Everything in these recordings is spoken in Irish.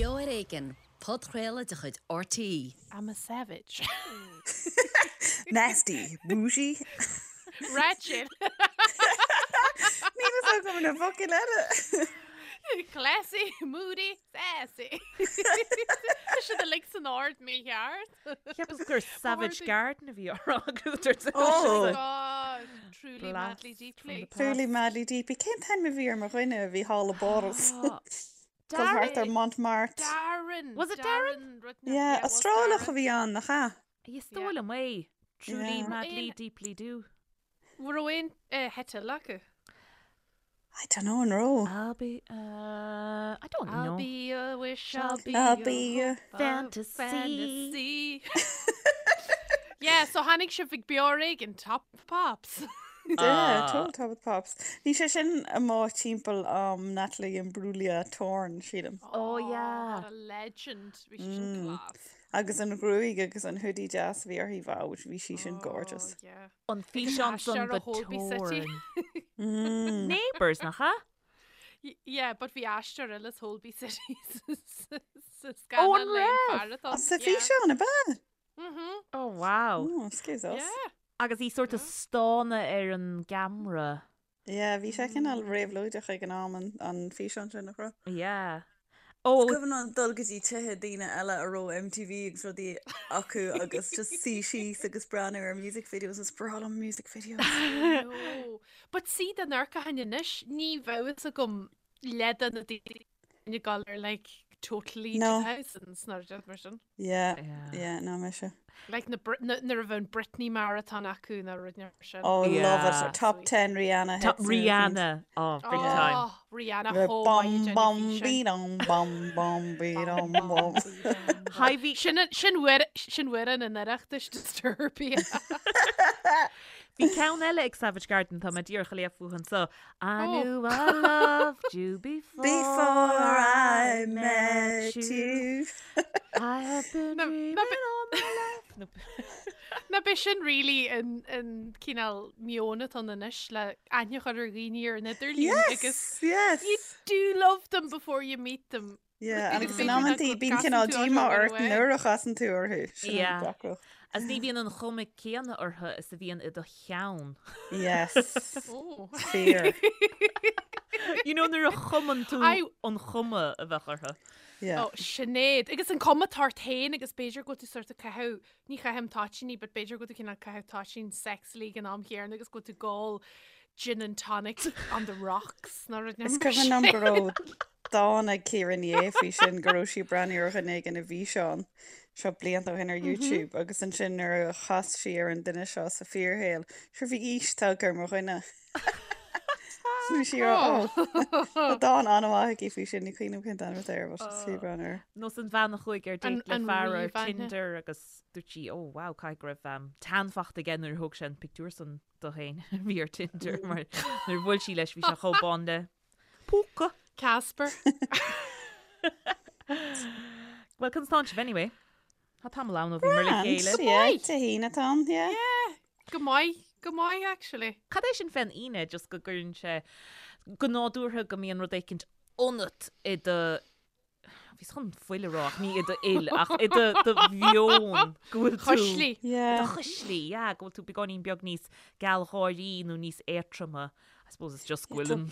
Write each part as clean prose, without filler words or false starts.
Beo ar Éigean, podchraoladh de chuid RTÉ. I'm a savage. Nasty. Bougie. Ratchet. Níl a fhios agam na focail eile. Classy, moody, sassy. Tá siad uilig san ord mícheart. Cheapas gur Savage Garden a bhí á rá agat ar dtús. Oh. God, truly madly deeply. Truly madly deeply. Cén t-ainm a bhí ar mo dhuine a bhí thall i bPáras? Dul thart ar Montmartre. Darren. Was it Darren? Yeah, Astrálach a bhí ann, nach ea? Is dóigh liom é. Truly Yeah. madly deeply do. An raibh aon theideal acu? I don't know an raibh. I'll be uh, I don't I'll know. be a wish, I'll be I'll a be a hope, a fantasy. fantasy. Yeah, so tháinig sibh ag Beo Ar Éigean, Top of the Pops. Yeah, total Top of the Pops. Bhí sé sin amuigh timpeall am Natalie Imbruglia Torn, sílim. Oh yeah. What a legend. Bhí sé sin class. Agus an ghruaig agus an hoodie deas a bhí uirthi, wow, bhí sí sin gorgeous. Oh, yeah. An físeán san aistear do ó Holby City. Torn. Neighbours, nach ea? Yeah, but bhí aistear eile as Holby City sa Oh, scannán an le an raibh? fear atá. Sa físeán, ab ea? Mhm. Oh wow. Oh, excuse us. Yeah. Agus í sort of stánadh ar an gceamara. Yeah, bhí sé cineál réabhlóideach ag an am an, an físeán sin, nach raibh? Yeah. Oh. Is cuimhin liom dul go dtí tithe daoine eile a raibh MTV agus rudaí acu agus just suí síos agus breathnú ar music videos is breá liom music videos. No. But see dá n-amharcfainn anois, ní bheadh fhios agam leath de na daoine ag dul ar like totally No. 2000s nó rud mar sin. Yeah, Yeah. yeah, ná mise. Like na Brit- na- nuair a bheadh an Britney marathon acu nó rud mar sin. Oh, Yeah. love it. Top 10 Rihanna Top hits. Rihanna. Oh, big time. Oh, Rihanna Bum chomh maith ag bum déanamh be dum bum bum be dum bum. Hi, bhí Sin sin uair sin uair an Oireachtais Disturbia. Bhí ceann eile ag Savage Garden tá mé díreach ag léamh fúthu anseo. I Oh. knew I loved you before, Before I met you. I have been Na- dreaming na be- all my life. No. Ná b'é sin really an an cineál meon atá ann anois le aithne a chur ar dhaoine ar an idirlíon agus Yes, yes. you do love them before you meet them. Yeah, Agus agus in b'fhéidir nach amantaí bíonn gcasann cineál tú orthu díomá right ort away. nuair a chasann tú orthu. Sin an Yeah. deacracht. Agus ní bhíonn an chuma céanna orthu is a bhíonn i do cheann. Yes. Oh. Fear. You know nuair a chumann tú I- an chuma a bheadh orthu. Yeah. Oh, Sinéad. Agus an cuma atá ort féin agus b'fhéidir go bhfuil tú sort of caitheamh, ní chaithim toitíní, but b'fhéidir go bhfuil tú cineál caitheamh toitín sexily ag an am chéanna agus go bhfuil tú ag ól gin and tonic on the rocks nó rud Is cuimhin liom go raibh dán ag Ciara Ní É faoi sin go raibh sí ag breathnú ar dhuine éigin i bhfíseán seo blianta ó shin ar YouTube agus ansin nuair a chas sí ar an duine seo sa fíorshaol, sure bhí aois tagtha ar mo dhuine. Bhí sí ar oh. Tá dán an-mhaith aici faoi sin, ní cuimhin liom cén t-ainm atá air, but is fiú breathnú air. Nós an bhean a chuaigh ar An- date le an fear ar ríomhaithne. Tinder agus dúirt sí, oh wow, caithfidh go raibh um, tan fachta aige nuair a thóg sé an pictiúr san di féin a bhí ar Tinder mar nuair a bhuail sí leis bhí sé chomh bán le púca. Casper. Well, conas tánn sibh anyway? Tá tamall ann ó bhíomar le chéile. Yeah, Dé hAoine atá ann, yeah. Yeah, go maith, go maith actually. Cad é sin fén Aoine just go gcuireann sé go nádúrtha go mbíonn rud éicint ionat i do Bhíos chun fuil a rá ach ní i do fhuil ach i do do mheon go bhfuil tú Chuislí. Yeah. Do chuislí, yeah, go bhfuil tú beagáinín beag níos gealgháirí nó níos éadtroma. I suppose it's just go bhfuil an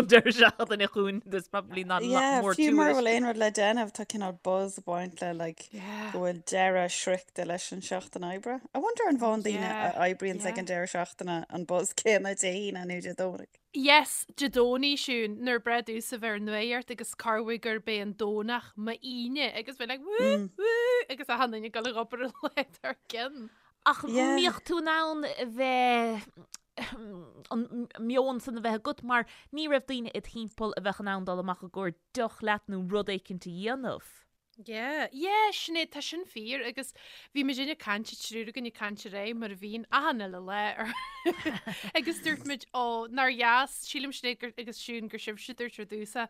an deireadh seachtaine chugainn, there's probably not a lot Yeah, more to fiú mura it. bhfuil aon rud le déanamh tá cineál buzz ag baint le like Yeah. go bhfuil deireadh sroichte leis an seachtain oibre. I wonder an bhfaigheann daoine Yeah, a oibríonns ag yeah. an deireadh seachtaine an buzz céanna Dé hAoine nó Dé Domhnaigh. Yes, Dé Domhnaigh, Siún, nuair breá domhsa bheith ar nuacht agus corruair gurb é an Domhnach m'Aoine agus bheith like woo, woo agus achan duine ag dul ag obair an lá dár gcionn. Ach mbíodh tú in ann a bheith, an meon san a bheith agat mar ní raibh daoine id thimpeall a bheadh in ann dul amach i gcomhair deoch leat nó rud éicint a dhéanamh. Yeah, yeah, Sinéad, tá sin fíor agus bhí muid ag caint, an triúr againn ag caint aréir mar a bhíonn achan uile lá ar agus dúirt muid ó nár dheas, sílim Sinéad gur, agus Siún gur sibhse dúirt ar dtús é,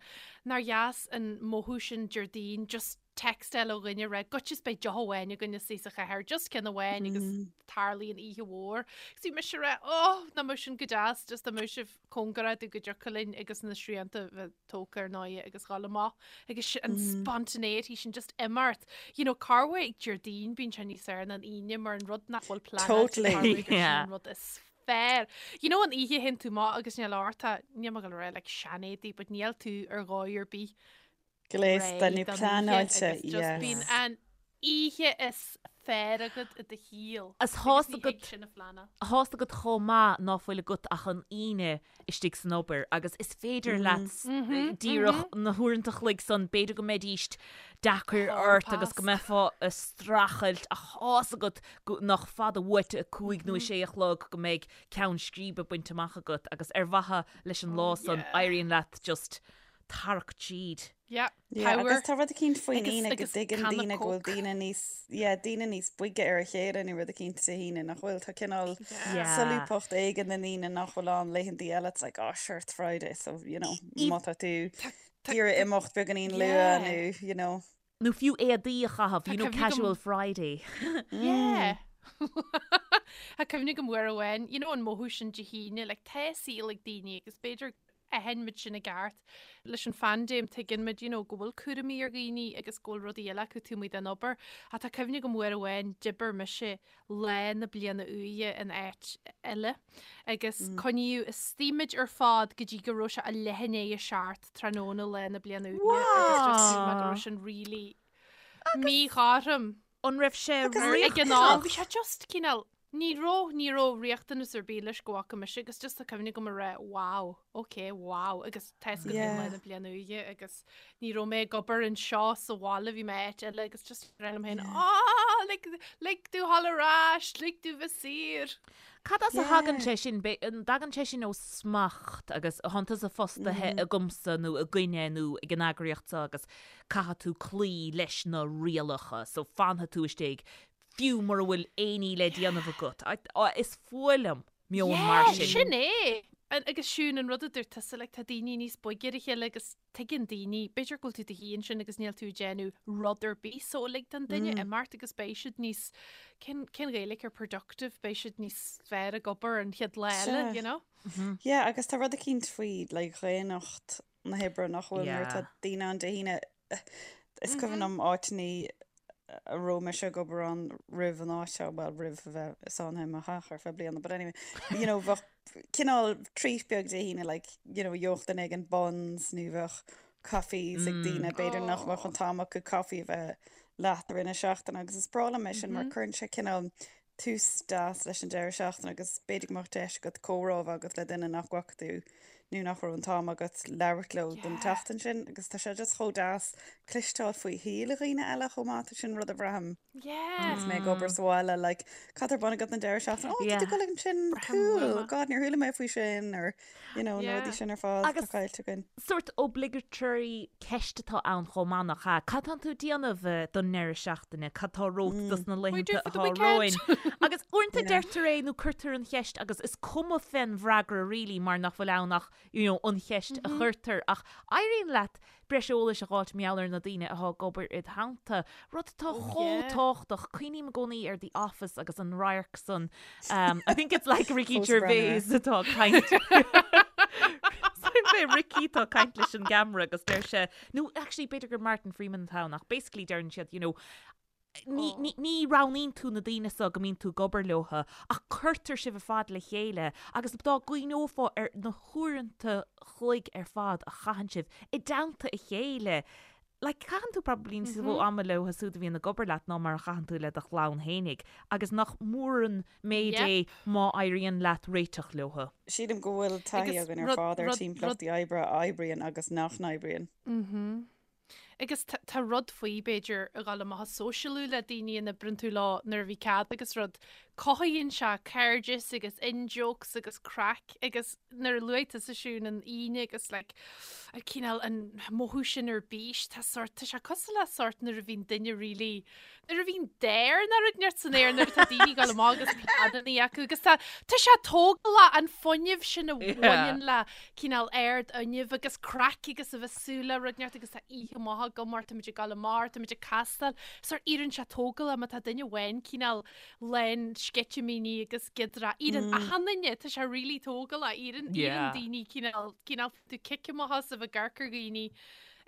nár dheas an mothú sin Déardaoin just. textáil ó dhuine ag rá goitse is beidh deoch amháin againn istigh sa chathair, just ceann amháin agus tarlaíonn oíche mhór. Agus bhí mise ag rá, oh, nach mbeadh sin go deas, just dá mbeadh sibh cóngarach domh go dtiocfadh linn agus na srianta bheith tógtha ar ndóigh agus dhul amach agus an spontaneity sin just imeacht. You know, corruair Déardaoin bíonn sé níos fearr ná an Aoine mar an rud nach bhfuil pleanáilte Totally. corruair gur sin Yeah. an rud is fearr. You know an oíche a théann tú amach agus níl ort ach, níl mé ag dul a rá like seanéadaí but níl tú ar dhóigh ar bith Gléasta nó réidh don oíche pleanáilte, agus just bíonn yes. an oíche is fearr agat i do shaol. Is Agus tá's ní agat thig sin a phleanáil. Tá's agat chomh maith ná fuil agat ach an Aoine istigh san obair agus is féidir leat díreach na huaireanta a chloig san, b'fhéidir go mbeidíst deacair Hall ort agus go pass. mbeifeá ag streachailt ach tá's agat go nach fada uait a 5 nó a 6 a chlog go mbeidh ceann scríbe bainte amach agat agus ar mhaithe leis an lá san yeah. éiríonn leat just tarrac tríd. Yeah, Yeah, power. agus tá rud eicínt faoin Agus- Aoine go agus dtuigeann canna daoine go bhfuil Coke. daoine níos, yeah, daoine níos boige ar a chéile nó rud eicínt Dé hAoine nach bhfuil. Tá cineál Yeah. solúbthacht éigin an Aoine nach bhfuil ann laethantaí eile. It's like, oh, sure, it's Friday, so, you know, má tá tú Tá- ag iarraidh imeacht beagáinín luath Yeah. nó, you know. Nó fiú éadaí a chaitheamh, Tá you know, cuimhne agam- casual Friday. Yeah. Tá cuimhne agam uair amháin, you know an mothú sin Dé hAoine, like tá saol ag daoine agus b'fhéidir aithníonn muid sin i gceart. Leis an phaindéim tuigeann muid, you know, go bhfuil cúraimí ar dhaoine agus go bhfuil rudaí eile acu taobh amuigh den obair. Ach tá cuimhne agam uair amháin d'oibir mise lá na bliana úire in áit eile agus coinníodh istigh muid ar fad go dtí go raibh sé a leath i ndiaidh a seacht tráthnóna lá na bliana úire agus just shíl mé go raibh sin really míchothrom. An raibh sé Ag an am, bhí sé just cineál, ní raibh, ní raibh riachtanas ar bith leis go bhfaca mise agus just tá cuimhne agam a rá wow, ok, wow agus tá 'fhios agat féin lá na bliana úire agus ní raibh mé ag obair anseo sa bhaile, bhí mé áit eile agus just rá liom féin ah, lig, lig domh dhul ar ais, lig domh bheith saor. Cad as a thagann sé sin? An dtagann sé sin ó smacht agus thánn tusa fostaithe agamsa nó againne nó ag an eagraíocht seo agus caithfidh tú cloí leis na rialacha so fanfaidh tú istigh fiú mura bhfuil aon ní le déanamh agat. Is fuath liom meon mar sin. Sin é! Agus Siún, an rud a dúirt tusa, like, tá daoine níos boige ar a chéile agus tuigeann daoine, b'fhéidir go bhfuil tú i do shuí ansin agus níl tú ag déanamh rud ar bith so lig don duine imeacht agus beidh siad níos, cén, cén Ghaeilge ar productive, beidh siad níos fearr ag obair an chéad lá eile, you know? Yeah, agus tá rud eicínt faoi, like, dhaonnacht na hoibre nach bhfuil nuair atá daoine ann Dé hAoine. Is cuimhin liom áiteannaí a raibh mise ag obair ann roimh an áit seo, bhuel roimh a bheith sáinnithe i mo theach ar feadh bliana, but anyway, you know, bheadh cineál treat beag Dé hAoine, like, you know, gheobhadh duine éigin buns nó bheadh coffees ag daoine, b'fhéidir nach mbeadh an t-am acu coffee a bheith leat i rith na seachtaine agus is breá liom é sin mar cuireann sé cineál tús deas leis an deireadh seachtaine agus b'fhéidir go mbeadh deis agat comhrá a bheith agat le duine nach bhfaca tú nó nach raibh an t-am agat labhairt leo don tseachtain sin agus tá sé just chomh deas cloisteáil faoi shaol dhaoine eile chomh maith, tá sin rud a bhraithim agus mé ag obair sa bhaile like cad tá ar bun agat an deireadh seachtaine? Oh, tá tú ag dul ansin, cool, God níor chuala mé faoi sin or you know, na rudaí sin ar fad atá caillte againn. Sórt obligatory ceist atá ann chomh maith nach ea? Cad tánn tú ag déanamh don ndeireadh seachtaine? Cad tá romhat dos na laethanta atá romhainn? Agus uaireanta deirtear é nó cuirtear an cheist agus is cuma fén bhfreagra really mar nach bhfuil ann ach you know an cheist a chuirtear ach éiríonn leat breis eolais a dh'fháilt mar gheall ar na daoine atá ag obair id theannta, rud atá chomh tábhachtach. Cuimhním i gcónaí ar The Office agus an radharc san, I think it's like Ricky Gervais atá ag caint. B'é Ricky atá ag caint leis an gceamara agus deir sé, nó actually b'fhéidir gur Martin Freeman atá ann ach basically deireann siad, you know, Ní, ní, ní roghnaíonn tú na daoine so go mbíonn tú ag obair leotha, ach cuirtear sibh ar fad le chéile agus dá gcuimhneofá ar na huaireanta chloig ar fad a chaitheann sibh i dteannta a chéile, like, caitheann tú probably níos mó ama leo siúd a bhíonn ag obair leat ná mar a chaitheann tú le do chlann fhéinig agus nach mór an méid é má éiríonn leat réiteach leotha. Sílim go bhfuil taithí againn ar fad ar timpeallachtaí oibre a oibríonn agus nach n-oibríonn. Agus tá rud faoi, b'fhéidir, a dhul amach ag sóisialú le daoine a n-oibreann tú leo nuair a bhí cead agus rud. Cothaíonn sé cairdeas agus in-jokes agus craic agus nuair a luaigh tusa Siún an Aoine agus like An cineál an mothú sin ar bís, tá sort, tá sé cosúil le sort nuair a bhíonn duine really, nuair a bhíonn dair nó rud inteacht san aer nuair atá daoine ag dul amach agus pleananna acu agus tá, tá sé tógálach an fuinneamh sin a bhaineann le cineál ardfhuinneamh agus craic agus a bheith súil le rud inteacht agus tá oíche maith agam mar táimid ag dul amach, táimid ag castáil, sort éiríonn sé tógálach má tá duine amháin cineál lán sceitimíní agus giodra. Éiríonn achan duine, tá sé really tógálach, éiríonn éiríonn daoine cineál, cineál tú cic amach as a bheith ag amharc ar dhaoine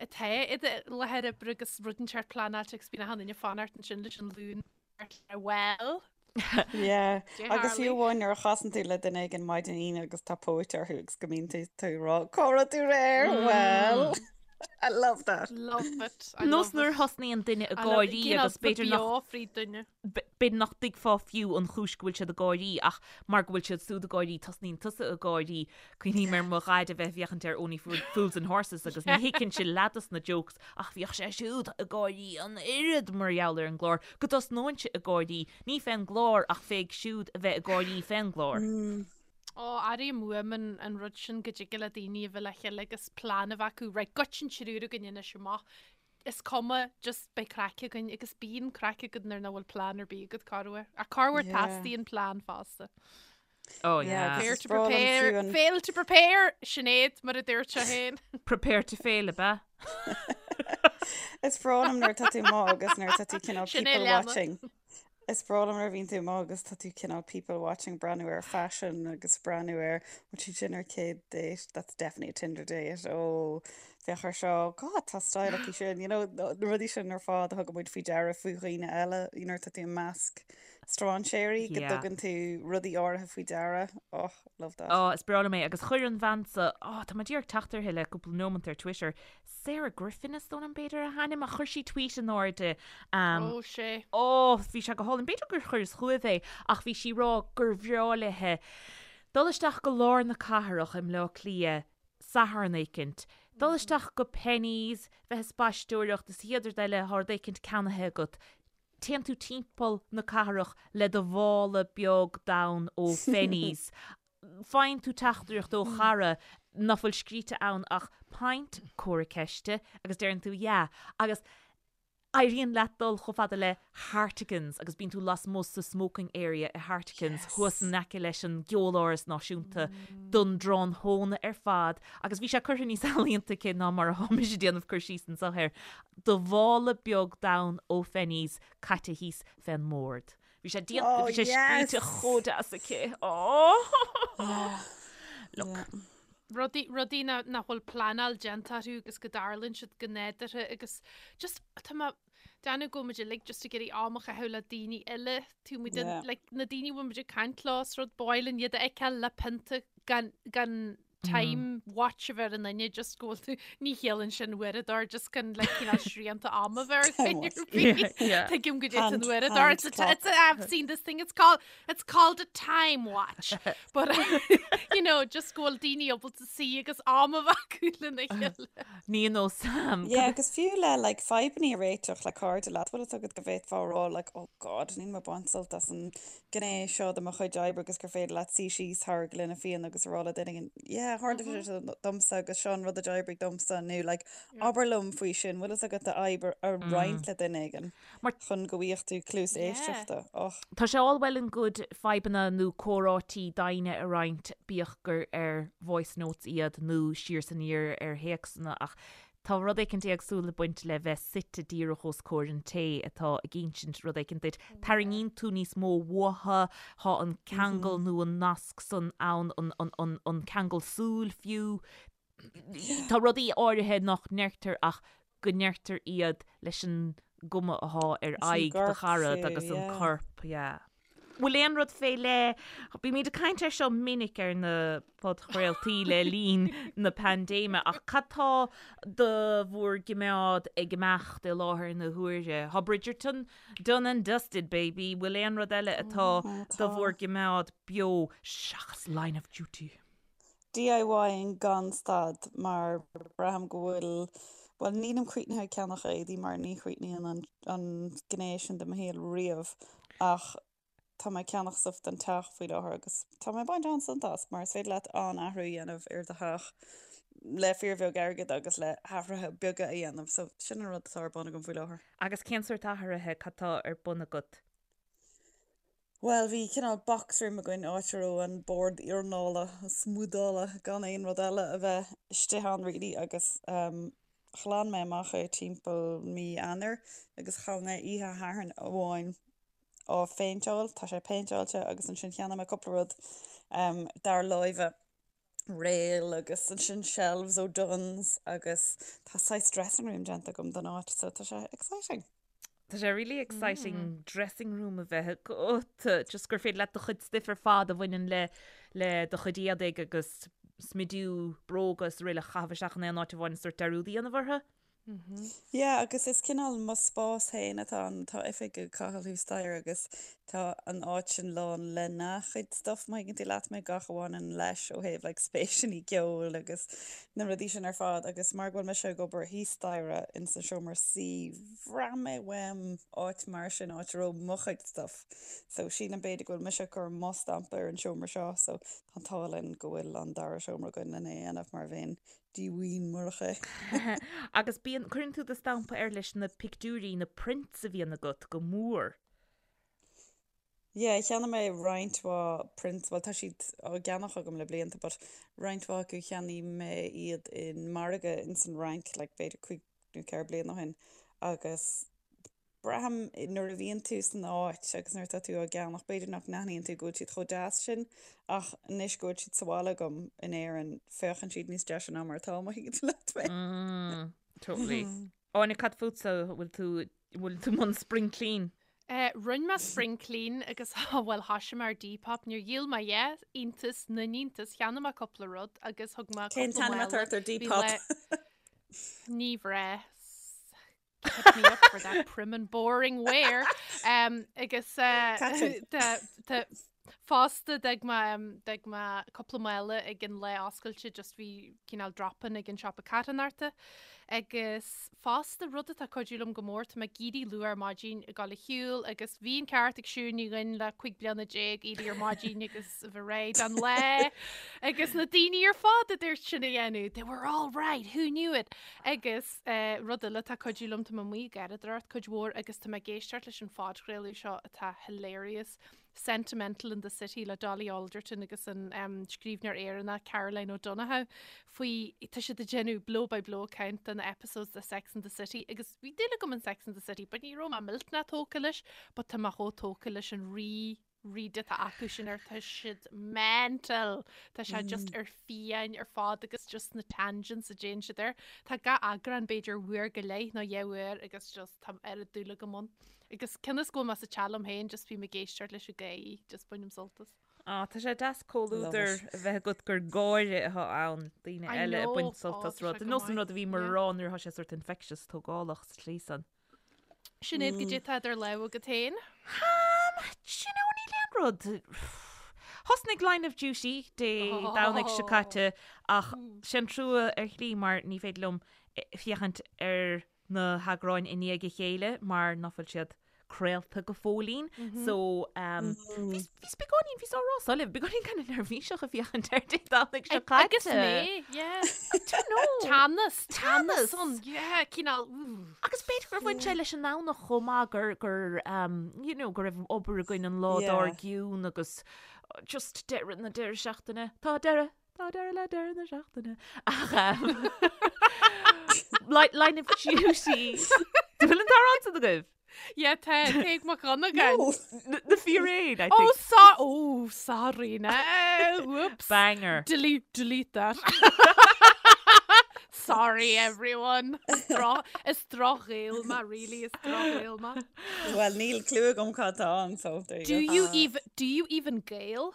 atá i do láthair oibre agus rud inteacht pleanáilte agus bíonn achan duine ag fanacht ansin leis an Luan well. Yeah. Agus fiú amháin nuair a chasann tú le duine éigin maidin Aoine agus tá póit orthu agus go mbíonn tú tú ag rá cá raibh tú aréir? Well. I love that. Love it. I Nós nuair a thosnaíonn duine ag gáirí agus b'fhéidir nach fríd duine. B'fhéidir nach dtuigfeá fiú an chúis go bhfuil siad ag gáirí ach mar go bhfuil siad siúd ag gáirí tosnaíonn tusa ag gáirí. Cuimhním ar mo dhaid a bheith ag féachaint ar Only Fools and Horses agus ní thuigfinnse leath dos na jokes ach bhíodh sé siúd ag gáirí an oiread mar gheall ar an gclár go dtosnóinnse ag gáirí, ní fén gclár ach féig siúd a bheith ag gáirí fén gclár. Ó, airím uaim an rud sin go dtig le daoine a bheith le chéile agus plean a bheith acu, right, goitse an triúr againn anois amach, is cuma, just beidh craic againn agus bíonn craic agat nuair nach bhfuil plean ar bith agat corruair. Ach corruair Yeah. teastaíonn plean fosta. Oh Yeah, yeah. agus Prepare is to breá liom prepare, fiú an- fail to prepare, Sinéad, mar a dúirt sé féin. Prepare to fail, ab ea? Is breá liom nuair atá tú amuigh agus nuair atá tú cineál Sin é people leanna. watching. Is breá liom nuair a bhíonn tú amuigh agus tá tú cineál people watching, breathnú ar fashion agus breathnú ar bhfuil siad sin ar chéad date, that's definitely a Tinder date, oh féach ar seo, God tá style aici sin, you know, na rudaí sin ar fad a thugann muid faoi deara faoi dhaoine eile, you know, tá tú i measc strainséirí go Yeah. dtugann tú rudaí áirithe faoi deara, oh, love that. Oh, is breá liom é agus chuir an bhean so, oh, tá mé díreach ag teacht uirthi le cúpla nóimeant ar Twitter, Sarah Griffin is dóigh liom b'fhéidir a hainm ach chuir sí tweet in airde um, Ó sé. Ó, bhí sé go hálainn. B'fhéidir gur chuireas chugaibh é ach bhí sí ag rá gur bhreá léithe dul isteach go lár na cathrach i mBleá Cliath Satharn éicint, dul isteach go Penneys, bheith ag spaisteoireacht is an chéad rud eile tá rud éicint ceannaithe agat. Téann tú timpeall na cathrach le do mhála beag donn ó Phenneys faigheann tú teachtaireacht ó chara nach bhfuil scríte ann ach pint, comhartha ceiste, agus deireann tú yeah agus éiríonn leat dul chomh fada le Hartigans agus bíonn tú lasmuigh sa smoking area i Hartigans thuas in aice leis an gCeoláras Náisiúnta don dtráthnóna ar fad agus bhí sé curtha níos ealaíonta aici ná mar atá mise ag déanamh cur síos anseo air, do mhála beag donn ó Phenneys caite thíos fén mbord. Bhí sé déanta, bhí sé scríte chomh deas aici. Oh! Look. Rudaí, rudaí nach bhfuil pleanáil déanta orthu agus go dtarlaíonn siad go nádúrtha agus just tá mé ag déanamh go bhfuil muid uilig just ag iarraidh am a chaitheamh le daoine eile, tú muid like na daoine a bhfuil muid ag caint leo is rud ba mhaith linn iad a fheiceáil le pionta gan, gan time watch a bheith ar an duine just go bhfuil tú ní chiallaíonn sin uaireadóir just gan like cineál srianta ama bheith ar dhuine ar bith. Tuigim go dtí an uaireadóir it's a, it's a, I've seen this thing it's called it's called a time watch but you know just go bhfuil daoine ábalta suí agus am a bheith acu lena chéile. Ní nó Sam. Yeah, agus fiú le like fadhbanna a réiteach le cairde leat, bhfuil fhios agat go bhféadfá a rá like oh god níl mé ag baint sult as an gné seo de mo chuid oibre agus gur féidir leat suí síos thar ghloine fíona agus a rá le duine éigin, yeah, tharla sé seo domsa agus seo an rud a d'oibrigh domsa nó like abair liom faoi sin, bhfuil fhios agat d'fhadhb a roinnt le duine éigin chun go bhfaighidh tú cluas éisteachta. Och. Tá sé all well and good fadhbanna nó comhráití daoine a roinnt, bíodh gur ar voice notes iad nó siar is aniar ar théacsanna ach Tá rud éicint éagsúil ag baint le bheith suite díreach os comhair an té atá ag insint rud éicint duit. Tarraingíonn tú níos mó uathu, tá an ceangal nó an nasc san ann, an ceangal súl fiú. Tá rudaí áirithe nach ndeirtear ach go ndeirtear iad leis an gcuma athá ar aghaidh do charad agus an corp, yeah. Bhfuil aon rud fé leith, bímid ag caint air seo minic ar na podchraoltaí le linn na paindéime, ach cad tá do bhur gcimeád ag imeacht i láthair na huaire? Tá Bridgerton done and dusted, baby, bhfuil aon rud eile atá do bhur gcimeád beo seachas Line of Duty? DIYing gan stad mar braithim go bhfuil, bhuel nílim críochnaithe ag ceannach éadaí mar ní chríochnaíonn an gné sin de mo shaol riamh ach tá mé ag ceannach stuff don teach faoi láthair agus tá mé ag baint an-sult as mar is féidir leat an-athrú a dhéanamh ar do theach. le fíorbheag airgid agus le hathruithe beaga a dhéanamh. So sin an rud atá ar bun agam faoi láthair. Agus cén sórt athruithe, cad tá ar bun agat? Bhuel, bhí cineál box room againn, áit a raibh an bord iarnála, smúdála, gan aon rud eile a bheith istigh ann really agus ghlan mé amach é timpeall mí Eanáir agus chaith mé oíche Shathairn amháin á phéinteáil, tá sé péinteáilte agus ansin cheannaigh mé cúpla rud dár láimhe, réil agus ansin shelves ó Dunnes agus tá saghas dressing room déanta agam don áit so tá sé exciting. Tá sé really exciting dressing room a bheith agat, just gur féidir leat do chuid stuif ar fad a bhaineann le le do chuid éadaigh agus smidiú, bróga is araile a chaitheamh isteach in aon áit amháin is sórt dearúd a dhéanamh orthu. Yeah, agus is cineál mo spás féin atá ann. Tá oifig ag Cathal thuas staighre agus tá an áit sin lán lena chuid stuff, má thuigeann tú leat mé, gach a bhaineann leis ó thaobh like spéiseanna ceoil agus na rudaí sin ar fad agus mar go bhfuil mise ag obair thíos staighre ins an seomra suí, bhraith mé uaim áit mar sin, áit a raibh mo chuid stuff. So sílim b'fhéidir go bhfuil mise ag cur mo stampa ar an seomra seo so tá an t-ádh linn go bhfuil an dara seomra againn lena dhéanamh mar bheinn díomhaoin murach é. Agus bíonn, cuireann tú do stampa air leis na pictiúirí, na prints a bhíonn agat go mór. Yeah, cheannaigh mé roinnt mhaith prints, bhuel tá siad á gceannach agam le blianta but roinnt mhaith acu cheannaigh mé iad in margadh ins an Fhrainc like b'fhéidir cúig nó ceithre bliana ó shin agus Braithim nuair a bhíonn tú san áit agus nuair atá tú á gceannach, b'fhéidir nach n-aithníonn tú go bhfuil siad chomh deas sin ach anois go bhfuil siad sa bhaile agam in Éirinn, féachann siad níos deise ná mar atá, má thuigeann tú leat mé. Totally. Áine, cad fútsa, bhfuil tú, bhfuil tú i mbun spring clean? Eh, rinne mé spring clean agus bhuel thoisigh mé ar Depop, níor dhíol mé a dhath, iontas na n-iontas, cheannaigh mé cúpla rud agus thug mé Cén cúpla t-ainm mála, atá ort ar bhí Depop? le ní bhreith. Hit me up for that prim and boring wear. Um, agus uh, Catrin. tá- fosta d'fhág mé um, d'fhág mé cúpla mála ag an lá oscailte just bhí cineál drop-in ag an siopa carthanachta. Agus fosta rud atá ag cuidiú liom go mór tá mé ag éirí luath ar maidin ag dul a shiúl agus bhí an ceart ag Siún Ní Dhuinn le 15 bliana éirí ar maidin agus a bheith réidh don lá agus na daoine ar fad a dúirt sin a dhéanamh. They were all right, who knew it? Agus rud eile atá ag cuidiú liom, tá mé amuigh ag garraíodóireacht cuid mhór agus tá mé ag éisteacht leis an phodchraoladh seo atá hilarious, Sentimental in the City le Dolly Alderton agus an scríbhneoir Éireannach Caroline O'Donoghue faoi, tá siad ag déanamh blow by blow account de na episodes de Sex and the City agus bhí dúil agam in Sex and the City but ní raibh mé millteanach tógtha leis but tá mé chomh tógtha leis an rí rud atá acu sin ar tá siad mental tá sé just ar fiáin ar fad agus just na tangents a déanann siad air. Tá gach eagrán b'fhéidir uair go leith nó dhá uair agus just tá oiread dúil agam ann. Agus cionn is go bhfuil mé sa teach liom féin just bím ag éisteacht leis i gcónaí, just bainim sult as. Á, tá sé deas comhluadar a bheith agat gur gáire atá ann, daoine eile ag baint sult as rud. Nós an rud a bhíomar a rá nuair atá sé sort infectious tógálach sa tslí san. Sinéad, goidé tá idir lámha agat féin? Um, do you know, níl aon rud. Thosnaigh Line of Duty Dé Domhnaigh seo caite ach sin trua ar shlí mar ní féidir liom féachaint ar na heagráin i ndiaidh a chéile mar ná fuil siad craolta go fóillín. So, um, bhíos bhíos beagáinín, bhíos á rá so libh, beagáinín kind of neirbhíseach ag féachaint air Dé Domhnaigh seo caite. Agus mé, yeah. I don't know. Teannas, teannas ann, yeah, cineál, ooh. Agus b'fhéidir gur bhain sé leis an nDomhnach chomh maith gur, gur, um, you know, go raibh obair againn an lá Yeah. dár gcionn agus just deireadh na deireadh seachtaine. Tá deireadh, tá deireadh le deireadh na seachtaine. Ach, um, Line of Duty. Bhfuil an t-amhrán san agaibh? Yeah, tá Tadhg Mac Dhonnagáin. No. Na fíréin, I Oh, think. so oh, sorry now. Whoops. Banger. Delete, delete that. Sorry, everyone. Is droch, is droch-Ghael mé, really, is droch-Ghael mé. Well, níl clue agam cad tá ann, so there you Do go. you even, do you even Gael?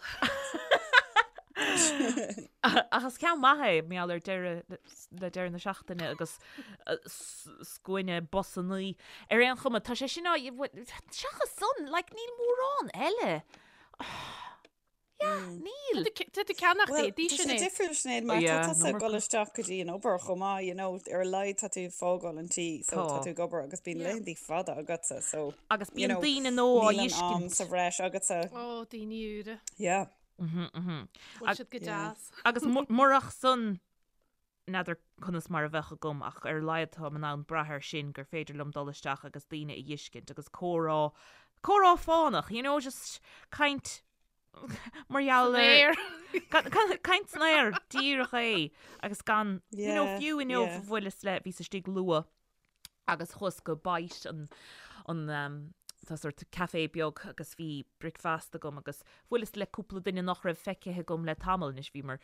Ach is ceann maith é, mar gheall ar deireadh le deireadh na seachtaine agus scuaine busannaí. Ar aon chuma, tá sé sin á, seachas san, like, níl mórán eile. Yeah, níl. Tá tú ag ceannach Well, éadaí tá sin sé é. difriúil Sinéad, mar tá Yeah, tusa no ag dul isteach go dtí an obair chomh maith, you know, ar a laghad tá tú ag fágáil an tí, so tá Tá. tú ag obair agus bíonn Yeah. laethanta fada agatsa, so, Agus you bíonn know, daoine nua á níl an am fheiscint. sa bhreis agatsa. Ó, daoine úra. Yeah. Bhfuil siad go Yeah. deas. Agus murach san. N'fheadar conas mar a bheadh agam ach ar a laghad táim in ann brath air sin gur féidir liom dul isteach agus daoine a dh'fheiscint agus comhrá, comhrá fánach, you know, just caint mar gheall ar caint san aer, díreach é agus gan, you know, fiú inniu bhuaileas le, bhíos istigh luath agus chuas go Bite an, an um, tá sort café beag agus bhí bricfeasta agam agus bhuaileas le cúpla duine nach raibh feicthe agam le tamall anois bhíomar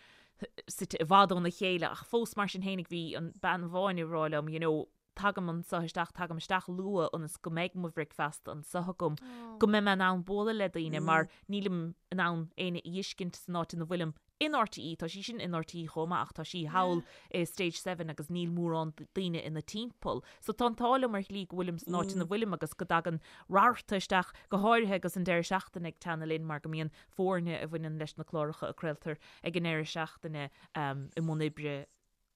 suite i bhfad óna chéile ach fós mar sin fhéinig bhí an bean amháin ag rá liom you know tagaim anseo isteach, tagaim isteach luath ionas go mbeidh mo bhricfeasta anseo agam, go mbeidh mé in ann bualadh le daoine mar nílim in ann éinne a dh'fheiscint san áit ina bhfuilim in RTÉ, tá sí sin in RTÉ chomh maith ach tá sí thall i Stage Seven agus níl mórán daoine ina timpeall. So tá an t-ádh liom ar shlí go bhfuilim san áit ina bhfuilim agus go dtagann rabharta isteach, go háirithe agus an deireadh seachtaine ag teannadh linn mar go mbíonn foirne a bhaineann leis na cláracha a craoltar ag an ndeireadh seachtaine i mbun oibre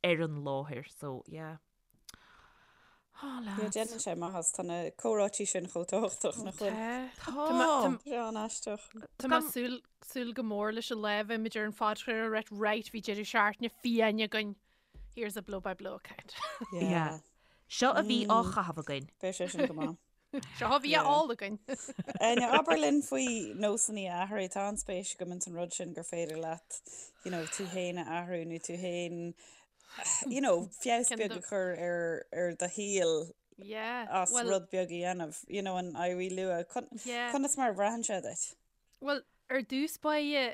ar an láthair. So yeah. Oh lads. Déanann sé maitheas, tá na comhráití sin chomh tábhachtach nach bhfuil? Tá. Tá sé an-aisteach. Tá mé súil súil go mór leis an lá a bheimid ar an phodchraoladh right right bhí deireadh seachtaine fiáin againn. Here's a blow by blow account. Yeah. Seo a bhí á chaitheamh againn. Beidh sé sin go maith. Seo a bhí á ól againn. Áine, abair linn faoi nósanna a athrú. Tá an-spéis agam ins an rud sin gur féidir leat, you know, tú féin a athrú nó tú féin you know, feabhas beag a chur ar, ar do shaol Yeah, as well, rud beag a dhéanamh, you know, an éirí luath. Con, yeah. Conas mar a bhraitheann sé duit? Well, ar dtús báire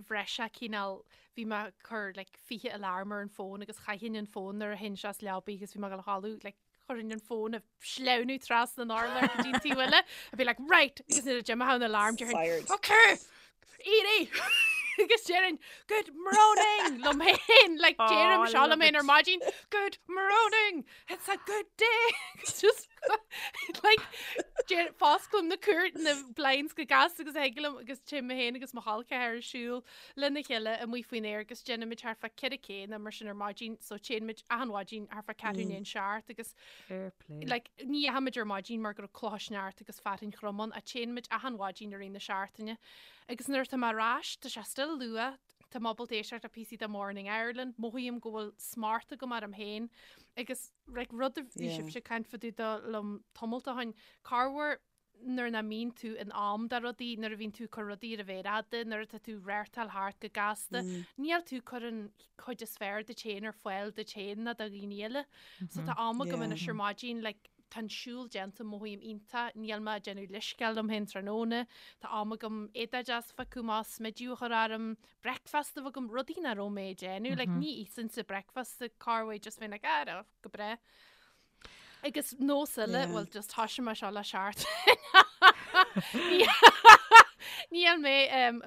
bhraith sé cineál bhí mé ag cur like, 20 alarm ar an fón agus chaithfinn an fón nuair a théinn as leabaidh agus bhí mé ag dul a chodladh like, chuirfinn an fón ag sleamhnú trasna an urláir go dtí an taobh eile I'd be like right agus nuair a d'imeodh an alarm déarfainn Fired. okay éirí agus déarfainn good morning liom féin like Oh, deirim seo liom féin ar maidin good morning it's a good day It's just like deir fosclaim na cúr na blinds go gasta agus thig liom agus téim mé féin agus mo chol ceathar ag siúl lena chéile amuigh faoin aer agus déanaimid thart fá 4 K nó mar sin ar maidin so téimid achan mhaidin thart fá ceathrú i ndiaidh a seacht agus Fair play. like, ní dheachaimid ar maidin mar go raibh clocha sneachta agus fearthainn throm ann ach téimid achan mhaidin i rith na seachtaine agus nuair atá mé ar ais tá sé still luath tá mé ábalta éisteacht le píosaí de Morning Ireland mothaím go bhfuil smacht agam orm féin agus like, rud a bhí Yeah. sibhse ag caint fá dtaobh de liom tamalt ó shin corruair nuair nach mbíonn tú in am do rudaí, nuair a bhíonn tú ag cur rudaí ar an mhéar fhada, nuair atá tú ag reáchtáil thart go gasta, níl tú ag cur an chuid is fearr duit féin ar fáil duit féin ná do dhaoine eile. So tá am agam anois ar maidin, like, tá an siúl déanta, mothaím iontach, níl mé ag déanamh leithscéal liom féin tráthnóna, tá am agam éadach deas a phiocadh amach, smideadh a chur orm, breakfast a bheith agam, rudaí nach raibh mé ag déanamh, like, ní íosfainnse breakfast corruair, just bheinn like, ah, go breá. Agus nós eile, bhuel just thoisigh mé seo le seachtain. Níl mé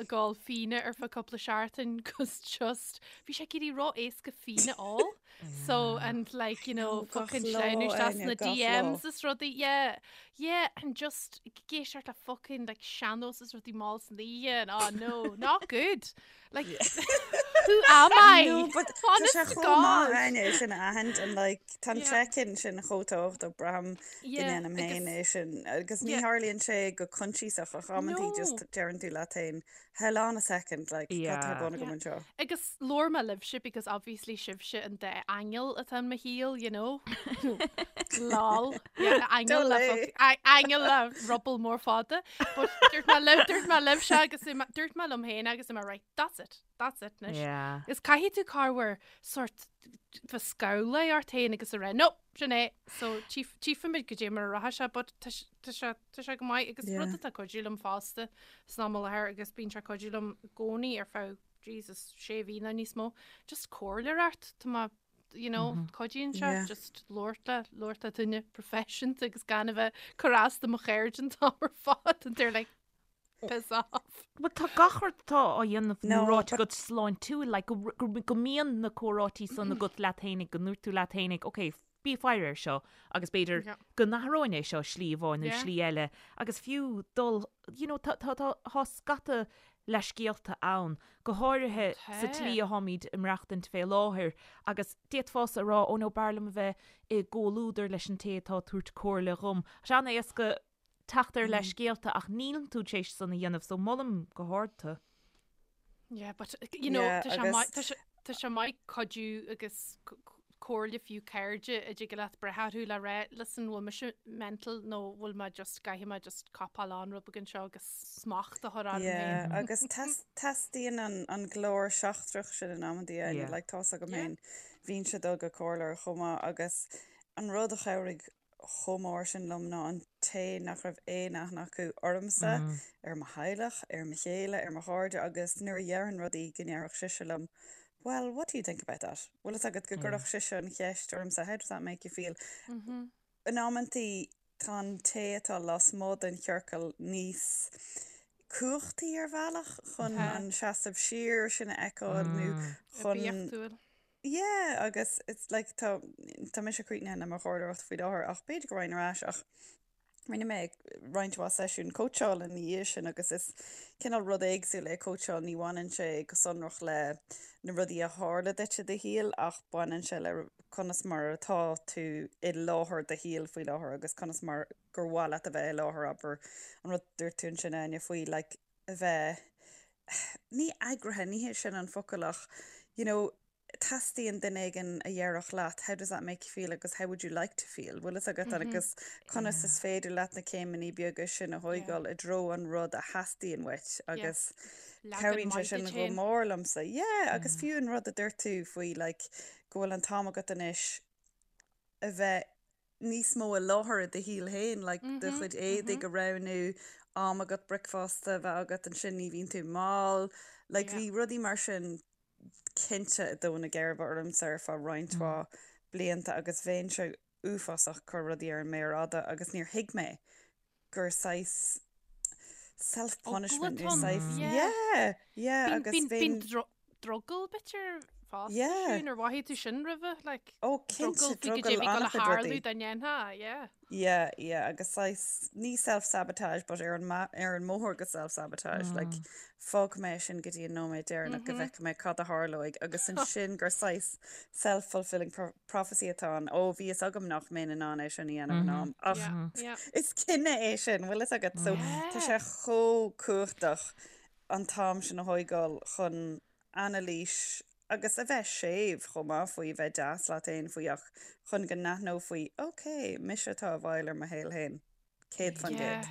ag ól fíona ar feadh cúpla seachtain cos just bhí sé ag éirí ró-éasca fíon a ól. So and like you know fucking sleamhnú isteach sna DMs is rudaí yeah yeah and just ag éisteacht le fucking like sean-nós is rudaí mall san oíche and oh no not good. Like, who am I? No, but tá sé chomh maith Áine sin a aithint and like tá an check-in sin chomh tábhachtach braithim go ndéanaim féin é sin agus ní tharlaíonn sé go coinsiasach ach amantaí just deireann tú leat féin hold on a second like cad tá ar bun agam anseo. Agus labhair mé libhse because obviously sibhse an dá aingeal atá in mo shaol, you know. Lol. Yeah, aingeal le aingeal le ruball mór fada. But dúirt mé libh, dúirt mé libhse agus dúirt mé liom féin agus mé right, that's it, that's it anois. Yeah. Is caithfidh tú corruair sort bheith scamhlaithe ort féin agus a rá, no, sin é. So tchífimid goidé mar a rachaidh sé, but tá sé, tá sé, tá sé go maith agus rud atá ag cuidiú liom fosta san am i láthair agus bíonn sé ag cuidiú liom i gcónaí ar feadh Jesus, sé mhí nó níos mó, just comhairleoireacht, tá mé you know, cuidíonn sé just labhairt le, labhairt le duine proifisiúnta agus gan a bheith ag cur as do mo chairde an t-am ar fad and they're like, piss off. Well tá gach rud atá á dhéanamh nó ráite agat sláintiúil, like, go, go, go mbíonn na comhráití san agat leat fhéinig, go ndúirt tú leat fhéinig, ok, bí ag faire air seo agus b'fhéidir Yeah. go n-athróinn é seo slí amháin nó Yeah. slí eile agus fiú dul, you know, tá, tá, tá, tá scata leithscéalta ann, go háirithe sa tslí atháimid ag maireachtaint fé láthair, agus d'fhéadfása a rá, oh no, b'fhearr liom a bheith i gcomhluadar leis an té atá ag tabhairt comhairle dhom. Tá sé an-éasca teacht ar leithscéalta ach níl tú tar éis san a dhéanamh, so molaim go hard tú. Yeah, but, you know, tá sé maith, tá sé. tá sé maith cuidiú agus comhairle fiú cairde a dtig leat brath orthu le rá, listen, bhfuil mise mental nó bhfuil mé just, caithfidh mé just copáil on rud beag anseo agus smacht a chur orm Yeah, féin. agus teastaíonn an, an glór seachtrach sin in amantaí, Áine, Yeah. like tá's agam Yeah. féin, bhínnse ag dul go comhairleoir chomh maith agus an rud a chabhraigh chomh mór sin liom ná an té nach raibh aon aithne acu ormsa, ar mo theaghlach, ar mo chéile, ar mo chairde agus nuair a dhéarfainn rudaí go ndéarfadh sise liom Well, what do you think about that? Bhfuil fhios agat go gcuirfeadh sise an cheist ormsa How does that make you feel? In amantaí tá an té atá lasmuigh den chiorcal níos cumhachtaí ar bhealach chun an seasamh siar sin a fheiceáil nó chun Oibiachtúil. Yeah, agus it's like tá tá mise críochnaithe le mo chomhairleoireacht faoi láthair ach b'fhéidir go raghainn ar ais ach rinne mé roinnt mhaith seisiún cóitseála ina dhiaidh sin agus is cineál rud éagsúil é cóitseáil, ní bhaineann sé go sonrach le na rudaí a tharla duit i do shaol ach baineann sé le conas mar atá tú i láthair do shaoil faoi láthair agus conas mar gur mhaith leat a bheith i láthair, abair an rud a dúirt tú ansin Áine faoi like a bheith, ní eagraithe, ní hé sin an focal ach, you know, teastaíonn duine éigin a dhéarfadh leat how does that make you feel agus how would you like to feel, bhfuil fhios agat agus conas is féidir leat na céimeanna beaga sin a thóigeáil i dtreo an rud a theastaíonn uait agus cabhraíonn sé sin go mór liomsa. Yeah, agus fiú an rud a dúirt tú faoi like go bhfuil an t-am agat anois a bheith níos mó i láthair i do shaol féin, like do chuid éadaigh a roghnú, am agat bricfeasta a bheith agat, ansin ní bhíonn tú mall, like bhí rudaí mar sin cinnte ag dó na geirbe ormsa ar feadh roinnt mhaith blianta agus bheinnse uafásach ag cur rudaí ar an méar fhada agus níor thuig mé gur saghas self punishment nó saghas yeah yeah agus bhíonn drogall b'fhéidir fosta yeah. Siún, ar mhothaigh tú sin roimhe like oh cinnte drogall an-chuid rudaí dá ndéanfá yeah yeah yeah agus saghas ní self sabotage but ar an ar an mbóthar go self sabotage mm. like fágfaidh mé sin go dtí an nóiméad deireanach go bhfeicfidh mé cad a tharlóidh agus ansin gur saghas self fulfilling prophecy atá ann ó bhí fhios agam nach mbeinn in ann é sin a dhéanamh in am ach is cinneadh é sin bhfuil fhios agat so tá sé chomh cumhachtach an t-am sin a thóigeáil chun anailís agus a bheith séimh chomh maith faoi a bheith deas leat féin faoi ach chun go n-aithneofaí ok mise atá i bhfeighil ar mo shaol féin. 100%. Yeah.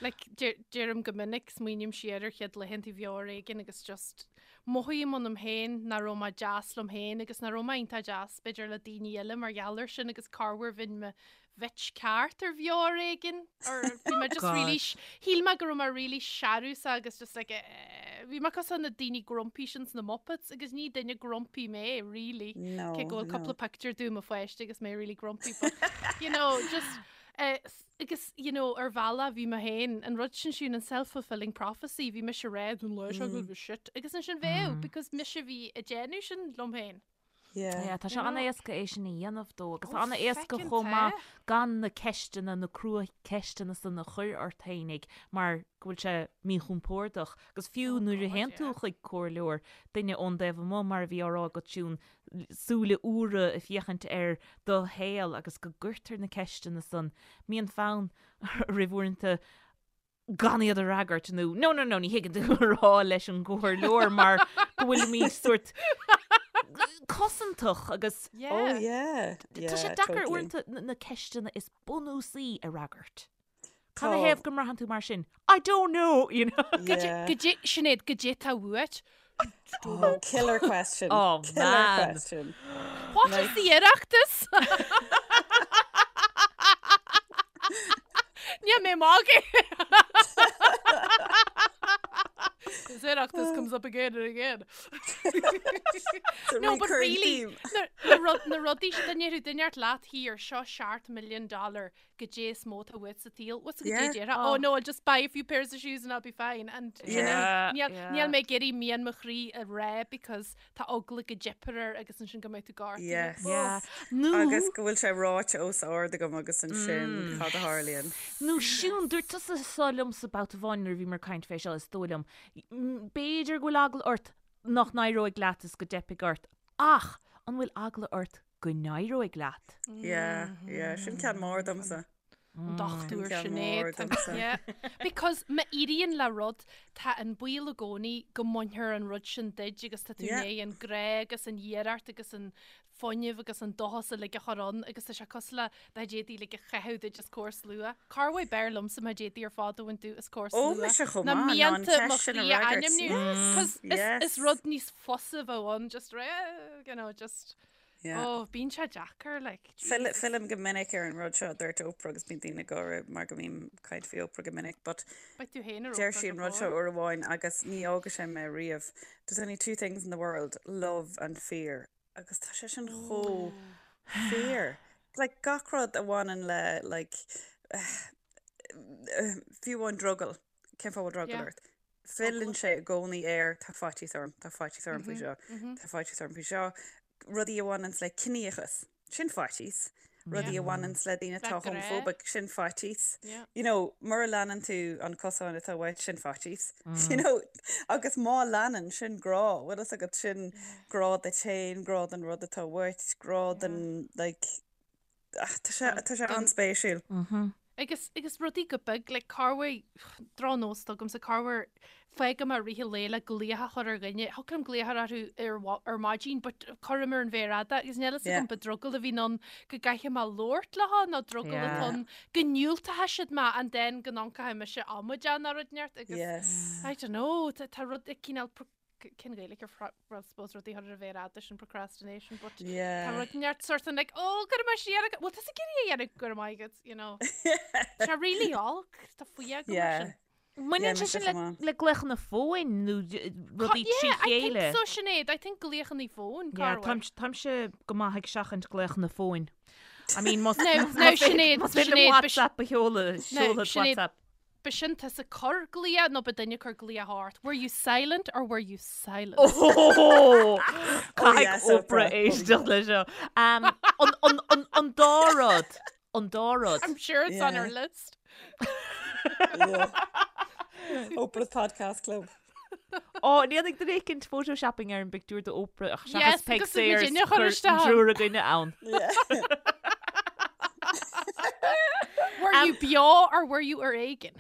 Like, deirim go minic, smaoiním siar ar chéad laethanta bheo ar éigean agus just mothaím ionam féin nach raibh mé deas liom féin agus nach raibh mé iontach deas b'fhéidir le daoine eile mar gheall air sin agus corruair bheinn mo bhitch ceart ar bheo ar éigean or bhí mé just really shíl mé go raibh mé really searúsach agus just like eh, bhí mé cosúil na daoine grumpy sin sna Muppets agus ní duine grumpy mé really No, cé go bhfuil no. cúpla picture dom i mo pháiste agus mé really grumpy but you know just Agus, you know, ar bhealach bhí mé féin, an rud sin siún an self-fulfilling prophecy, bhí mise ag rá an lá seo go bhfuil shit, agus ansin bheadh, because mise a bhí ag déanamh sin liom féin. Yeah. Yeah, tá sé an-éasca é sin a dhéanamh dó agus tá an-éasca chomh maith gan na ceisteanna, na crua-cheisteanna san a chur ort fhéinig mar go bhfuil sé míchompordach. Agus fiú nuair a théann tú chuig comhairleoir, duine ón dtaobh amuigh mar a bhí á rá agat Siún, súile úra ag féachaint ar do shaol agus go gcuirtear na ceisteanna san, mbíonn fonn oraibh uaireanta gan iad a fhreagairt nó no, no, no, ní thuigeann tú a rá leis an gcomhairleoir mar go bhfuilimid sórt cosantach agus Yeah. Oh yeah. Yeah, tá sé deacair totally. uaireanta na ceisteanna is bunúsaí a fhreagairt. Cad Tá. ina thaobh go mbraitheann tú mar sin? I don't know, you know. Yeah. Goidé, Sinéad, goidé tá uait. Oh, killer question. Oh, killer man. question. What is the Oireachtas? Níl mé magaidh. This Oireachtas comes up again and again. It's a No, but recurring really, theme. na, na, rud, na rudaí sin, dá ndéarfadh duine ort leat here, seo seacht million dollar goidé is mó atá uait sa tsaol. What's goidé Yeah. déarfá? Oh no, I'll just buy a few pairs of shoes and I'll be fine. And Yeah. níl Yeah. níl mé ag iarraidh mian mo chroí a rá because tá eagla go dteipfear air agus ansin go mbeidh tú gortaithe. Yes. Yeah. Nó Agus go bhfuil sé ráite os ard agam agus ansin cad a tharlaíonn. Nó Siún, dúirt tusa seo liomsa babhta amháin nuair a bhíomar ag caint fé seo, is dóigh liom. B'fhéidir go bhfuil eagla ort nach n-éireoidh leat is go dteipfidh ort, ach an bhfuil eagla ort go n-éireoidh leat? Yeah, yeah, sin ceann mór domsa. An dochtúir Sinéad. Yeah. Because má éiríonn le rud, tá an baol i gcónaí go mbainfear an rud sin duit agus tá tú i ndiaidh an grá agus an iarracht agus an fuinneamh agus an dóchas uilig a chur ann agus tá sé cosúil le dá d'fhéadfaí like a chaitheamh duit os comhair slua. Corruair b'fhearr liomsa má d'fhéadfaí ar fad a bhaint díot os comhair Ó, slua mise chomh ná maith, ná an mianta mo cheist sin a chroí a fhreagairt. ainmniú. Yes, Cos is, yes. is rud níos fusa a bheadh ann, just, eh, you know, just Yeah. Oh, bíonn sé deacair, like, Fill, Jesus. fillim go minic ar an rud seo a dúirt Oprah agus bíonn daoine ag gáire mar go mbím ag caint faoi Oprah go minic, but Beidh tú féin ar deir Oprah sí an go rud seo fóill. uair amháin agus ní fhágfaidh sé mé riamh. There's only two things in the world, love and fear. Agus tá sé sin chomh fíor. Like, gach rud a bhaineann le, like, fiú amháin drogall, cén fáth a bhfuil drogall Yeah. ort? Filleann sé i gcónaí air, tá faitíos orm, tá faitíos orm faoi seo, tá faitíos orm faoi seo. Rudaí a bhaineanns le ciníochas, sin faitíos. Rudaí a bhaineanns le daoine atá homophobic, sin faitíos. You know, mura leanann tú an cosán atá uait, sin faitíos. You know, agus má leanann, sin grá. Bhfuil fhios agat, sin grá duit féin, grá don rud atá uait, grá don, like, Tá sé, tá sé an-spéisiúil. Agus, agus rudaí go beag, like, corruair, drochnós atá agamsa, corruair, fágaim i rith an lae le glaoch a chur ar dhuine, thiocfadh liom glaoch a chur orthu ar, ar maidin, but cuirim ar an mhéar fhada, agus níl fhios agam ba drogall a bhíonn ann go gcaithfidh mé labhairt leo nó drogall atá ann go ndiúltóidh siad mé and then go n-amharcfaidh mise amaideach nó rud inteacht agus Yes. I don't know, tá, tá rud ag cineál cén Ghaeilge ar fra- well, suppose rudaí a chur ar an mhéar fhada sin procrastination, but tá Yeah. rud inteacht sort of like, oh, cuirfidh mé siar ag- well, tá ag iarraidh a dhéanamh go raibh maith agat, you know. Tá sé really olc, tá fuath agam mar Yeah. sin. Mbaineann Yeah, sé mise sin le, chomh maith. le glaochanna fóin nó d- rudaí trí Yeah, I think chéile? so, Sinéad. I think glaochanna fóin, Yeah, corruair. táim- táimse go maith ag seachaint glaochanna fóin. I mean, más Now- now, Sinéad, más féidir Sinéad, liom ba- WhatsApp a sheoladh, seolfad Sinéad, WhatsApp. B'shin tusa ag cur glaoch nó ba duine ag cur glaoch ort? Were you silent or were you silenced? Oh! Caithfidh yes, Oprah Oprah. éisteacht le seo. Um, an, an, an, an dá rud. An dá rud. I'm sure it's on her Yeah. list. Yeah. Oprah's Podcast Club. Ó, an ndéanfaidh duine éicint photoshopping ar an bpictiúr de Oprah ach seachas Yes, Peig agus muid Sayers inne chur cuir isteach. triúr againne ann. Yeah. Were you beo or were you ar éigean?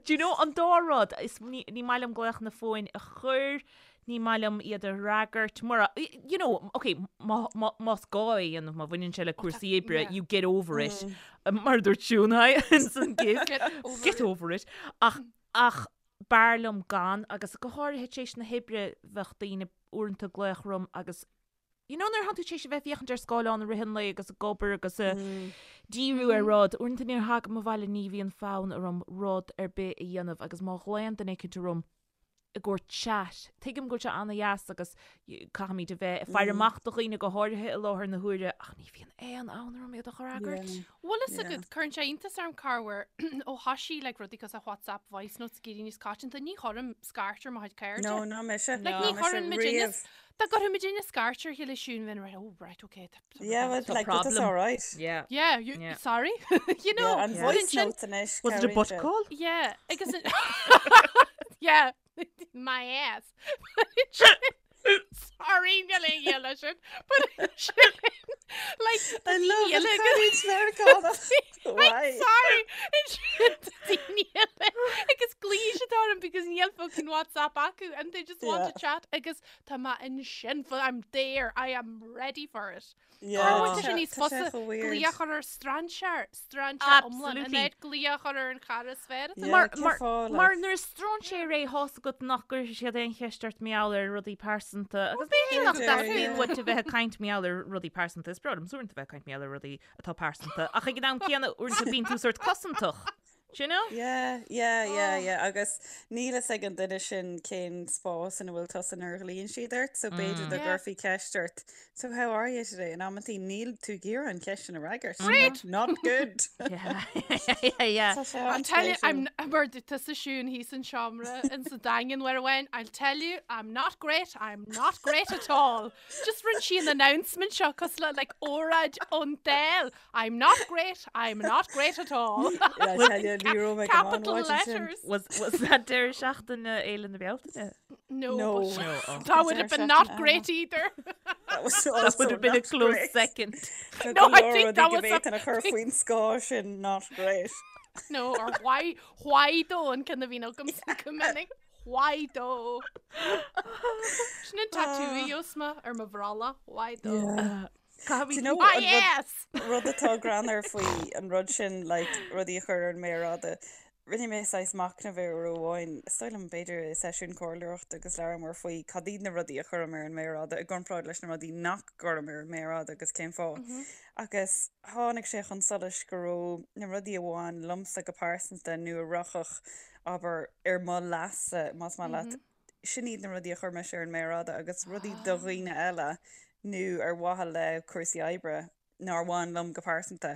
Do you know, an dá rud, is ní, ní maith liom glaochanna fóin a chur, ní maith liom iad a fhreagairt, mura, you know, ok, má, má, más gá é a dhéanamh, má bhaineann sé le cúrsaí oibre, yeah. you get over it. Mar a dúirt Siún, hi, ins an gif. Get over Get it. over it. Ach, ach b'fhearr liom gan, agus go háirithe tar éis na hoibre bheadh daoine uaireanta ag glaoch orm agus You know nuair atá tú tar éis a bheith ag féachaint ar scáileán i rith an lae agus ag obair agus ag díriú ar rud, uaireanta nuair a thagaim abhaile ní bhíonn fonn orm rud ar bith a dhéanamh agus má ghlaonn duine éicint orm i gcomhair chat, tuigim go bhfuil sé ana-dheas agus caithfimid a bheith ag faire amach do dhaoine go háirithe i láthair na huaire ach ní bhíonn aon fhonn orm iad a fhreagairt. Bhfuil fhios agat, cuireann sé iontas orm corruair ó thosaigh like rudaí cosúil le WhatsApp voice notes ag éirí níos coitianta, ní chuirim scairt ar mo chuid cairde. No, ná mise. Like ní Ná mise chuireann muid inne riamh. Dá gcuirfeadh muid inne scairt ar a chéile Siún bheinn right, oh right, okay. tá- tá Yeah, rud but Tá like, but that's problem. all right. Yeah. Yeah, you, Yeah. sorry. you know, Yeah, and but voice ansin- notes anois. Was it a cabhraíonn butt sé. call? Yeah, agus an- yeah, my ass. Sorry, níl aon ghiall leis sin, but ansin, like, I love daoine an eile caint Meiriceánach. I'm Why? sorry. Ansin tá daoine eile agus glaofaidh siad orm because níl fucking WhatsApp acu and they just want Yeah. to chat agus tá mé ansin for I'm there, I am ready for it. Yeah, Tá tá sé níos tá sé fusa chomh weird. glaoch a chur ar strainséir, strainséir iomlán, in Absolutely. áit glaoch a chur ar an chara is fearr atá Yeah, Mar, cén mar, fáth, mar like? nuair is strainséir é tá fhios agat nach gcuirfidh siad aon cheist ort mar gheall ar rudaí pearsanta agus b'fhéidir nach B'fhéidir, dteastaíonn yeah. uait a bheith ag caint mar gheall ar rudaí pearsanta. Is breá liom uaireanta bheith ag caint mar gheall ar rudaí atá pearsanta ach ag an am céanna uaireanta bíonn tú sort cosantach. Do you know? Yeah, yeah, yeah, yeah. Agus níl fhios ag an duine sin cén spás ina bhfuil tusa nuair a ghlaonn siad ort, so b'fhéidir dá Yeah. gcuirfí ceist ort, So how are you today? In amantaí níl tú ag iarraidh an cheist sin a fhreagairt. Great! Not good. Yeah, yeah, yeah. Tá sé I'll tell you, an-spéisiúil. I'm mar tusa Siún thíos an seomra in sa Daingean uair amháin, I'll tell you, I'm not great, I'm not great at all. Just rinne sí an announcement seo cosúil le like óráid ón Dáil. I'm not great, I'm not great at all. I'll tell you Ní raibh mé go maith an Capital mhaidin sin. letters. Was, was that deireadh seachtaine Fhéile na Bealtaine? No, No. but No, oh. that would have been not great either. That was That also would have been a not close great. second. Tá No, go I leor think rudaí that go was a bhféadfainn a chur faoin scáth sin not great. No, or why, why though an ceann a bhíonn agamsa go minic. Why though? Sin an tattoo a gheobhas mé ar mo bhrolla. Why though? Yeah. Caithfimid Do you know Why an rud yes! rud atá greannmhar faoi an rud sin like rudaí a chur ar an méar fhada. Rinne mé saghas machnamh air uair amháin, is dóigh liom b'fhéidir i seisiún comhairleoireachta agus labhramar faoi cad iad na rudaí a chuirim ar an méar fhada i gcomparáid leis na rudaí nach gcuirim ar an méar fhada agus cén fáth. Agus tháinig sé chun solais go raibh na rudaí a bhain liomsa go pearsanta nó a rachadh, abair, ar mo leas-sa, más maith leat, sin iad na rudaí a chuir mise ar an méar fhada agus rudaí do dhaoine eile nó ar mhaithe le cúrsaí oibre nár bhain liom go pearsanta,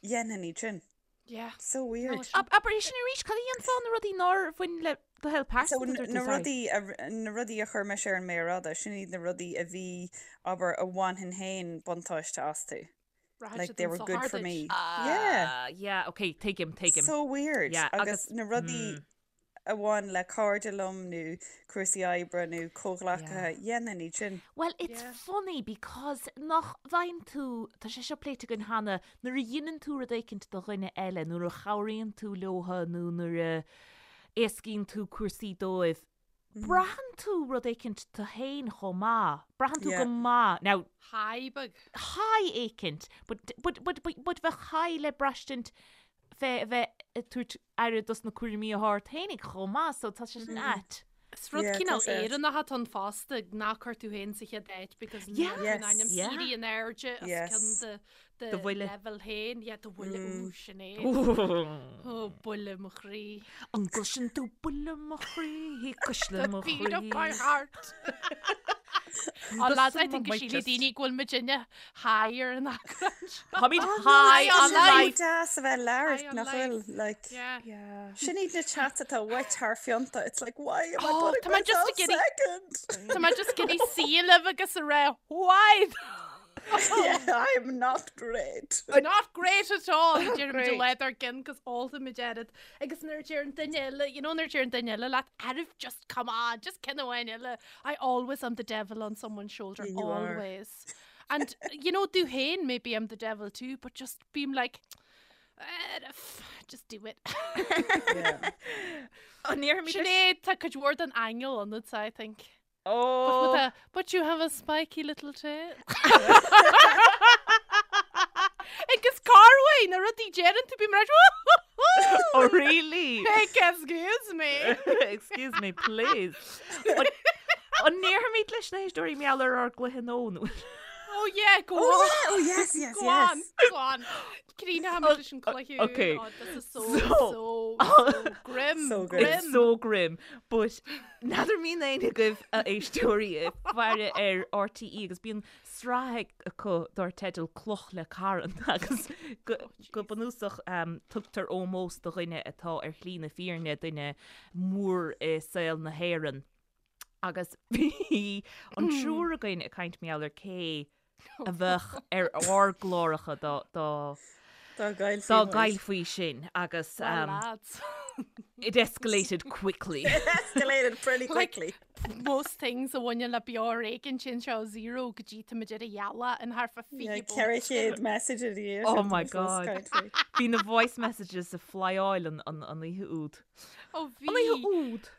dhéanfainn iad sin. Yeah. So weird. No, sin. Abair é sin arís, cad a dhéanfá na rudaí nár bhain le do shaol So pearsanta, dúirt tú, na sorry. rudaí a, na rudaí a chuir mise ar an méar fhada, sin iad na rudaí a bhí, abair, a bhainfinn féin buntáiste astu. Rachadh Like siad they an were good sochar for duit. me. Yeah. Ah, yeah, okay, tuigim, tuigim. So weird. Yeah, Agus agus, na rudaí mm. a bhain le cairde liom nó cúrsaí oibre nó comhghleacaithe, dhéanfainn iad sin. Well, it's Yeah. funny because nach bhfaigheann tú, tá sé seo pléite againn cheana, nuair a dheineann tú rud éicint do dhuine eile, nuair a chabhraíonn tú leotha nó nuair a éascaíonn tú cúrsaí dóibh, braitheann tú rud éicint tú féin chomh maith. Braitheann tú Yeah. go maith. Now, High beag. high éicint, but, but, but, but, but bheadh high le braistint fé a bheith ag tabhairt aire dos na cúraimí atá ort fhéinig chomh maith, so tá sé sin ait. Is rud Yeah, tá cineál sé ait. Éireannach atá ann fosta, ná cuir tú féin sa chéad áit because níl Yeah. tú in ainm Yes. Yeah. éirí in airde os Yes. cionn do Do do bhuille. level féin. Yeah, do bhuille, Mm. ooh, sin é. Ó, buille mo chroí. An gcloiseann tú buille mo chroí, cuisle The mo beat of my chroí. heart. Oh, lads, I Doesn't think go my sílfidh chest. daoine go bhfuil muidinne high ar an eagrán seo. Táimid Oh, no, high tá on sé life. chomh deas a bheith labhairt High on nach life. bhfuil, like, Yeah. Yeah. Sin iad na chats atá uait thar phionta. It's like, why am I Oh, putting tá mé just myself ag iarraidh- second? Tá mé just ag iarraidh suí libh agus a rá, why? Yeah, I'm not great. Not great at all. Deirimid Great. le dár gcinn cos ólfaimid oiread. Agus nuair a deir an duine eile, you know nuair a deir an duine eile leat, Arf, just come on, just ceann amháin eile. I always am the devil on someone's shoulder, Yeah, you are. always. And, you know, do féin, maybe I'm the devil too, but just bím like, Arf, just do it. Yeah. An ndéarfaimid leis- Sinéad, tá cuid mhór den aingeal ionat, I think. But, Oh. with a, but you have a spiky little tail. Agus Carway, na rudaí deireann tú bím mar Oh, really? Excuse me. Excuse me, please. An an ndéarfaimid leis na héisteoirí mar gheall ar ár gcluiche nó nó? Oh yeah, go Oh, on. yeah. Oh, yes, yes, Go yes. on, go on. Críochnóimid leis an cluiche. okay. Oh, this is so, So- so, so grim. So grim. It's so grim. But n'fheadar an mbíonn éinne agaibh a éisteoirí ag faire ar RTÉ agus bíonn sraith acu dar teideal Cloch le Carn agus go go bunúsach um, tugtar ómós do dhuine atá ar shlí na fírinne duine mór i saol na hÉireann. Agus bhí an triúr againn ag caint mar gheall ar cé a bheadh ar ár gcláracha dá dá Dá dá gcaillfí muid. gcaillfí sinn agus Well, um, lads. it escalated quickly. It escalated pretty Like- quickly. Most things a bhaineann le beo ar éigean sin seo zero go dtí tá muid ar a ghealach in thart fá Yeah, 20 ceithre chéad message a bhí Oh my God. Bhí na voice messages ag flyáil an an an oíche úd. Ó An oíche bhí úd.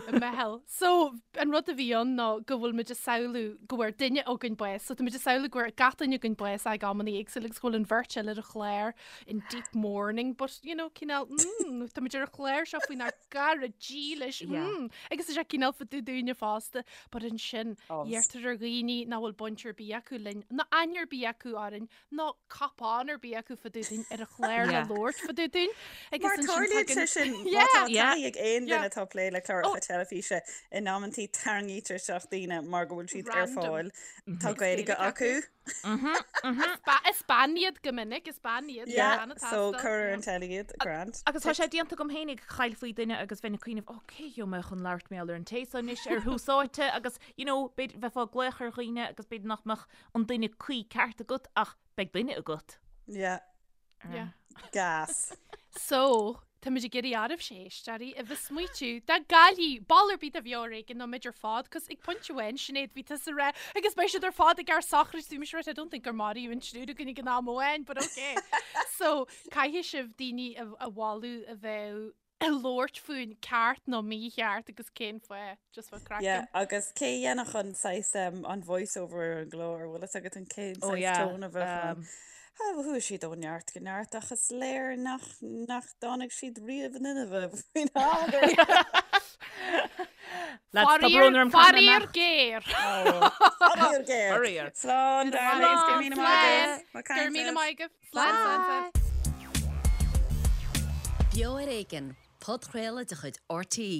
meitheal. So, an rud a bhí ann ná go bhfuil muid ag samhlú go bhfuair duine againn bás. So tá muid ag samhlú go bhfuair gach duine againn bás ag amanna éagsúla agus go bhfuil an bheirt eile ar an chlár in deep mourning, but, you know, cineál, mm, tá muid ar an chlár seo faoinár gcara dílis, Yeah. mm, agus tá sé cineál fá dtaobh dúinne fosta, but ansin, Obs. iarrtar ar dhaoine nach bhfuil baint ar bith acu linn, ná aithne ar bith acu orainn, ná cupán ar bith acu fá dtaobh dúinn ar an chlár le Yeah. labhairt fá dtaobh dúinn. Agus Mar ansin tarlaíonn sé tagann- sin má Yeah. tá Yeah. taithí ag aon duine Yeah. atá ag plé le cláracha teilifíse in amantaí tarraingítear isteach daoine mar go bhfuil siad ar Random. fáil. Tá Gaeilge Gaeilge acu. Is ba- Is bean iad go minic, is bean iad. Yeah, bean atá so sa- cuir ar an teilí iad, grand. Agus tá sé déanta agam féinig chaillfí duine agus bheinn ag cuimhneamh, ó cé gheobhaidh mé chun labhairt mar gheall ar an té seo anois ar thús áite agus you know, b'fhéidir bheifeá ag glaoch ar dhaoine agus b'fhéidir nach mbeadh an duine cuí ceart agat ach beidh duine agat. Yeah, Yeah. gas. So, Táimid ag iarraidh oraibhse éisteoirí a bheith smaoitiú dá gcaillfí ball ar bith de Bheo ar Éigean nó muid ar fad 'cause ag pointe amháin Sinéad bhí tusa ag rá agus beidh siad ar fad ag ár sochraid bhí mise right I don't think gur maraíodh an triúr againn ag an am amháin but okay. So caithfidh sibh daoine a a mholadh a bheadh ag labhairt fúinn ceart nó mícheart agus cén fáth just for craic. Yeah, agus cé a dhéanfadh an saghas um, an voice over ar an gclár, bhfuil fhios agat an cén Oh saghas yeah, tone a bheadh ann? um, Chuaigh siad ó neart go neart ach is léir nach nach dtáinig siad riamh in inmhe faoin am gur Lads, tá brón orm caithfidh mé Faraor imeacht. géar. Faraor géar. Faraor. Slán, darlings, go raibh míle maith agaibh. Slán. Go raibh míle maith agaibh. Slán, slán, slán. Beo ar Éigean, podchraoladh de chuid RTÉ.